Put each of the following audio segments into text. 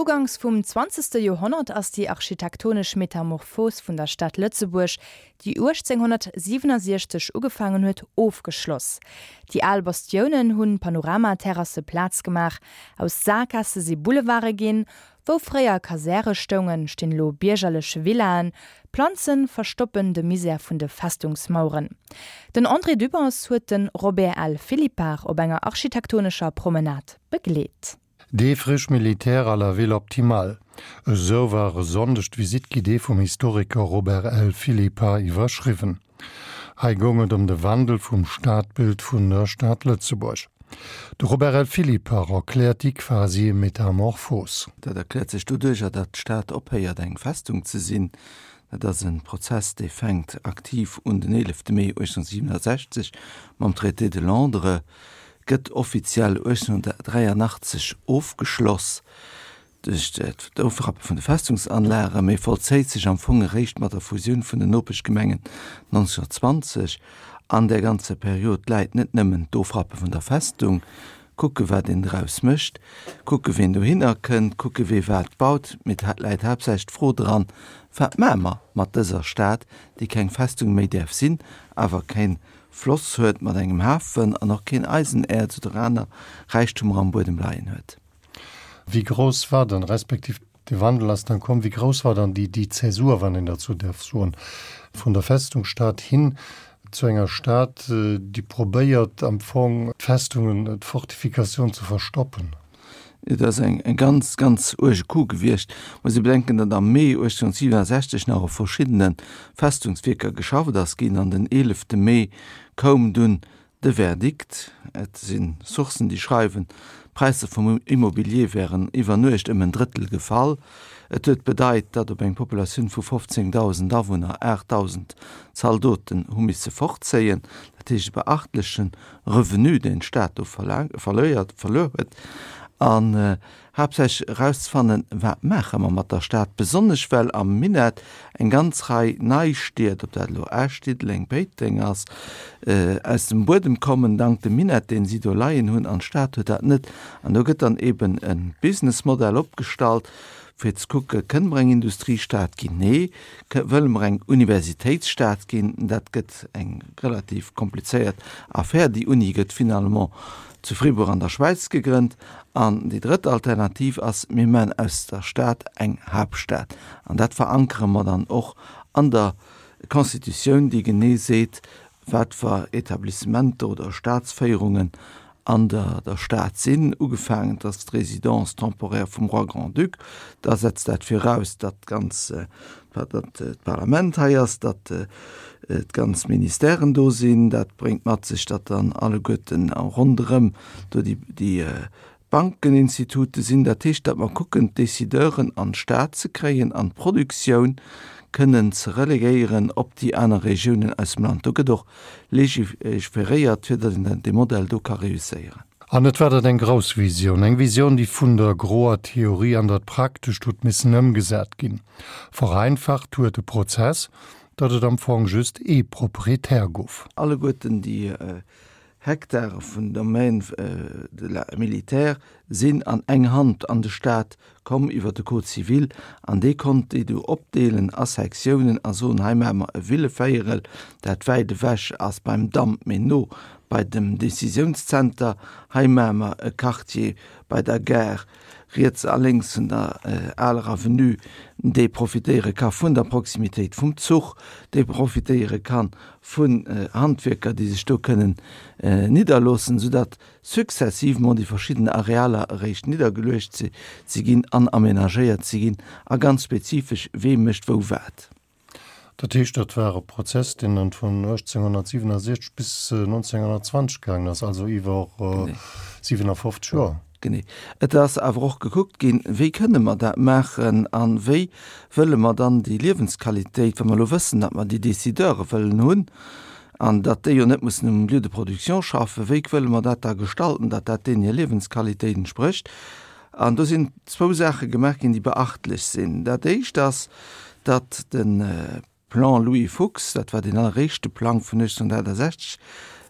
Uganks vum zwanzegste Joerhonnert ass déi architektonesch Metamorphos vun der Stad Lëtzebuerg, déi 1867 ugefaangen huet, ofgeschloss. Déi al Bastiounen hunn Panoramaterrasse Plaz gemaach, aus Saakgaasse si Boulevarde ginn, wou fréier Kasäre stoungen, stinn elo biergerlech Villaen, Planze verstoppen de Misär vun de Festungsmaueren. Den André Dübbers huet de Robert L. Philippart op enger architektonescher Promenade begleet. Des friches militaires à la ville optimale, esou war e Sonndeg d'Visite guidée vum Historiker Robert L. Philippart iwwerschriwwen. Hei goung et ëm de Wandel vum Stadbild vun der Stad Lëtzebuerg. De Robert L. Philippart erkläert déi quasi Metamorphos. Dat erkläert sech doduercher, datt d'Stad ophéiert eng Festung ze sinn. Dat ass e Prozess, dee fänkt aktiv un den 11 Mee 1867 mam Traité de Londres gëtt offiziell 1883 ofgeschloss duerch d'Ofrappe vun de Festungsanlagen, mee vollzéit sech am Fong eréischt mat der Fusioun vun den Nopeschgemengen 1920. An där ganzer Period läit net nëmmen d'Ofrappe vun der Festung, kucke wat een draus mécht, kucke ween dohinner kënnt, kucke wee wat baut, mee et läit haaptsächlech d'Fro dran, Wat maache mer mat dëser Stad, déi keng Festung méi däerf sinn, awer keng Floss huet mat engem Hafen an och keen Eisenäerz oder aner Räichtumer am Buedem leien huet. Wéi grouss war dann, respektiv de Wandel ass dann komm, wéi grouss war dann déi déi Zäsur, wann een dat sou däerf soen, vun der Festungsstad hin zu enger Stad, déi probéiert am Fong d'Festungen, d'Fortifikatioun ze verstoppen? Et ass eng ganz, ganz uerge Coup gewiescht. Muss ee bedenken, datt am Mee 1867 nach op verschiddene Festungswierker geschafft ass ginn an den 11 Mee koum dunn de Verdikt. Et si Sourcen, déi schreiwen, d'Präisser vum Immobilier wären iwwer Nuecht ëm en Drëttel gefall. Et huet bedeit, datt op eng Populatioun vu 15.000 Awunner 8.000 Zaldoten hu misse fortzéien. Dat heescht e beachtlechen Revenu, deen d'Stad do verluer huet, an haaptsächlech erauszefannen, wat maache mer mat der Stad, besonnesch well am Minett eng ganz Rei nei Stied, ob dat elo Esch, Diddeleng, Péiteng ass, aus dem Buedem kommen, dank dem Minett, deen si do leien hunn, an d'Stad huet dat net. An do gëtt dann eben e Businessmodell opgestallt, fir ze kucke, Kënne mer eng Industriestad ginn? Nee. Wëlle mer eng Universitéitsstad ginn? Dat gëtt eng relativ komplizéiert Affär. Déi Uni gëtt finalement zu Fribourg an der Schwäiz gegrënnt. An déi drëtt Alternativ ass, mir maachen aus der Stad eng Haaptstad. An dat verankere mer dann och an der Constitutioun, déi genee seet, wat fer Etablissementer oder Staatsféierungen an der der Stad sinn, ugefaangen, dass d'Résidence temporaire vum Roi Grand-Duc, da setzt dat viraus, datt d'ganz, datt d'Parlament hei ass, datt d'ganz Ministèren do sinn. Dat bréngt mat sech, datt dann alleguerten ronderëm do déi, déi Bankeninstitute sinn. Dat heescht, datt mer kucken, d'Décideuren an d'Stad ze kréien an d'Produktioun kënnen ze relegéieren op déi aner Regiounen aus dem Land. Do gëtt och legiferéiert, fir datt een dee Modell do ka reusséieren. An et war dat eng grouss Visioun, eng Visioun, déi vun der groer Theorie an dat Praktescht huet missen ëmgesat ginn. Vereinfacht huet de Prozess, datt et am Fong just ee Proprietär gouf. Alleguerten déi Hektare vun Domaine de la militaire sinn an eng Hand an de Staat komm iwwer de Code civil an dee konnt déi du opdeelen a Sektiounen a soen, hei maache mer e Villevéierel, dat wäit ewech ass beim Damp, mee no bei dem Décisiounszenter, hei maache mer e Quartier bei der Gare, riets a lénks vun der aler Avenue, dee profitéiere ka vun der Proximitéit vum Zuch, dee profitéiere kann vun Handwierker, déi sech do kënnen nidderloossen, soudatt successivement déi verschidden Arealer eréischt niddergeluecht si ginn an amenagéiert si ginn a ganz spezifesch, wee mécht wou wat. Dat heescht, dat war e Prozess, deen dann vun 1867 bis 1920 gaangen ass, also iwwer 57 Joer. Genee. Et ass awer och gekuckt ginn, wéi kënne mer dat maachen a wéi wëlle mer dann déi Liewensqualitéit, wa mer elo wëssen, datt mer déi Décideure wëllen hunn an datt déi jo net mussen um Lieu de production schaffen, wéi wëlle mer dat da gestalten, datt dat deenen hir Liewensqualitéit entsprécht. An do sinn zwou Saache gemaach ginn, déi beachtlech sinn. Dat Éischt ass, datt de Plan Louis Fuchs, dat war deen alleréischte Plang vun 1868.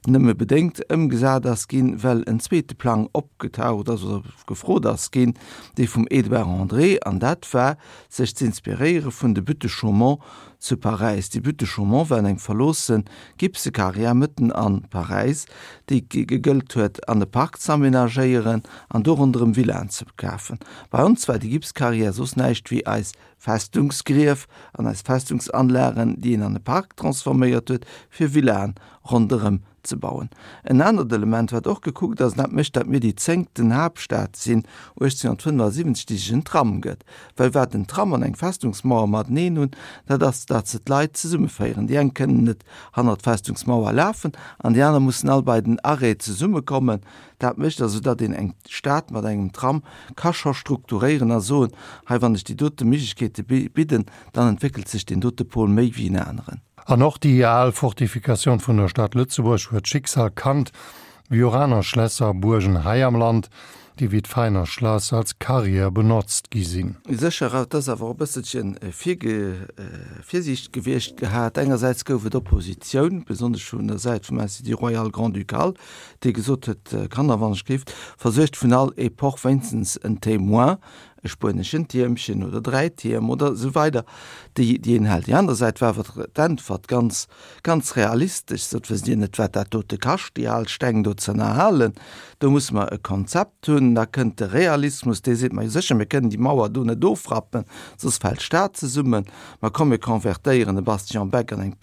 nëmme bedéngt ëmgesat ass ginn, well en zweete Plang opgetaucht ass oder gefrot ass ginn, dee vum Edouard André, an dat war, sech z'inspiréiere vun de Buttes de Chaumont zu Paräis. Déi Buttes de Chaumont waren eng verloosse Gipsekarriär mëtten a Paräis, déi gegëllt huet an e Park z'amenagéieren an do ronderëm Villaen ze kafen. Bei ons war déi Gipskarriär soss näischt wéi eis Festungsgrief an eis Festungsanlagen, déi een an e Park transforméiert huet, fir Villaen ronderëm ze bauen. En anert Element, wat och gekuckt ass, an dat mécht, datt mir déi zéngten Haaptstad sinn 1875, déi sech en Tram gëtt, well wat en Tram an eng Festungsmauer mateneen hunn, dat ass, datt se d'Leit zesummeféieren. Déi eng kënnen net hannert d'Festungsmauer lafen an déi aner mussen all bei den Arrêt zesummekommen. Dat mécht also, datt een eng Stad mat engem Tram ka scho strukturéieren a soen, hei wann ech déi dote Méiglechkeete bidden, dann entwéckelt sech deen dote Pol méi wéi en aneren. An och déi al Fortifikatioun vun der Stad Lëtzebuerg huet d'Schicksal kannt, wéi och aner Schlässer a Buergen hei am Land, déi wéi d'Veiner Schlass als Carrière benotzt gi sinn. Sécher, et ass awer och e bësselche Virsiicht gewiescht gehat. Engersäits gouf et Oppositioun, besonnesch vun der Säit vum Institut Royal Grand-Ducal, dee gesot huet, Kanner, wann ech géif, versuergt vun all Epoch wéinstens en Témoin, e spueneschen Tiermchen oder 3 Tierm oder esou weider, déi déi een hält. Déi aner Säit war awer d'Äntwert ganz, ganz realistesch, sot, Wësst Dir net, wat dat dote kascht, déi al Steng do ze ënnerhalen? Do musse mer e Konzept hunn. Da kënnt de Realismus, dee seet, Ma jo sécher, mir kënnen déi Mauer do net ofrappen, soss fält d'Stad zesummen. Ma komm, mir konvertéieren e Bastion Beck an eng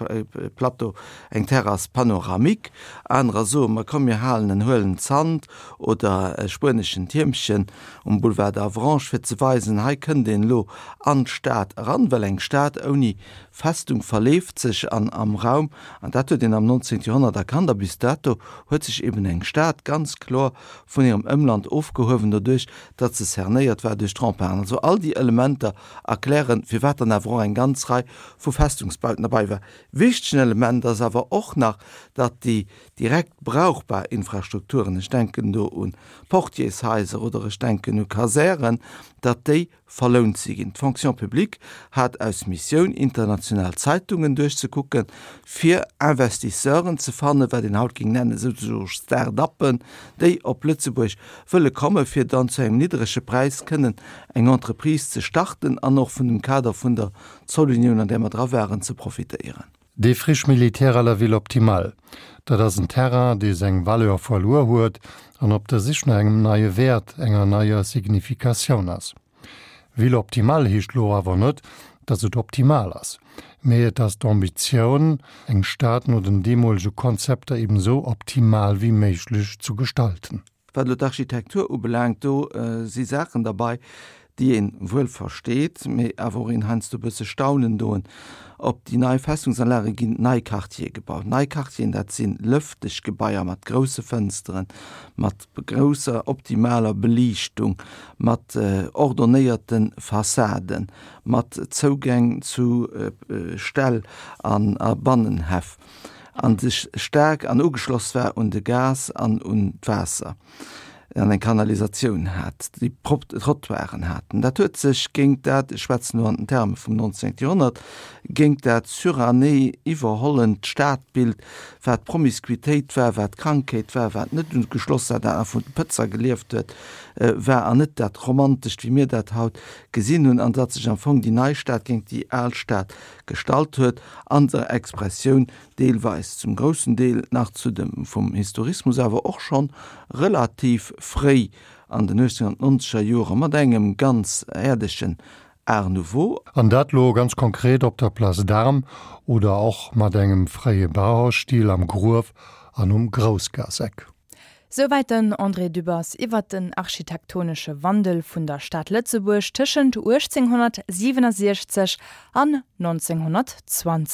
Plateau, eng Terrasse panoramique. Anerer soen, Ma komm, mir halen en huelen Zant oder e spueneschen Tiermchen um Boulevard d'Avranches, fir ze weisen, hei kënnt een elo an d'Stad eran, well eng Stad ouni Festung verleeft sech an am Raum, an dat huet een am 19. Joerhonnert erkannt, a bis dato huet sech eben eng Stad ganz kloer vun hirem Ëmland ofgehuewen, doduerch datt se cernéiert war duerch d'Remparten. Also all déi Elementer erklären, firwat dann awer och eng ganz Rei vu Festungsbauten derbei war. Wichtegen Element ass awer och nach, datt déi direkt brauchbar Infrastrukturen, ech denken do u Portiershaiser oder ech denken u Kasären, datt déi verlount si ginn. D'Fonction publique hat aus Missioun, international Zeitungen duerchzekucken, fir Investisseuren ze fannen, wat een haut géing nennen souzesoe Start-uppen, déi op Lëtzebuerg wëlle kommen, fir dann zu engem niddrege Präis kënnen eng Entreprise ze starten an och vun dem Kader vun der Zollunioun, an där mer dra waren, ze profitéieren. Défriche militaire à la ville optimale, dat ass en Terrain, dee seng Valeur verluer huet an op der Sich no engem neie Wäert, enger neier Significatioun ass. Ville optimale heescht lo awer net, datt et optimal ass, mee et ass d'Ambitioun, eng Stad no den deemolege Konzepter eben esou optimal wéi méiglech zu gestalten. Wat elo d'Architektur ubelaangt, do si Saachen derbei, déi een wuel versteet, mee awer och een heiansdo e bësse staunen doen. Op déi nei Festungsanlage ginn nei Quartiere gebaut. Nei Quartieren, dat si lëfteg Gebaier mat grousse Fënsteren, mat grousser optimaler Beliichtung, mat ordonnéierte Fassaden, mat Zougäng zu Ställ a Bannenhäff. an sech staark an ugeschloss war un de Gas an un d'Waasser an eng Kanalisatioun hat, déi prop Trottoiren haten. Dat huet sech géint dat, ech schwätzen elo an den Terme vum 19. Joerhonnert, géint dat suranné iwwerhollent Stadbild, wat Promiscuitéit war, wat Krankheet war, wat net ugeschloss war, dat nach vun de Pëtzer gelieft huet, war an net dat Romantescht, wéi mir dat haut gesinn hunn, an datt sech am Fong déi nei Stad géint déi al Stad gestallt huet, an der Expressioun deelweis, zum groussen Deel nach zu dem vum Historismus, awer och schonn relativ fréi an den 1890er Jore mat engem ganz äerdegen Art Nouveau. An dat lo ganz konkret op der Place d'Armes oder och mat engem fréie Bauhausstil am Gruef an um Groussgaasseck. Souwäit den André Dübbers iwwert den architektonesche Wandel vun der Stad Lëtzebuerg tëschent 1867 an 1920.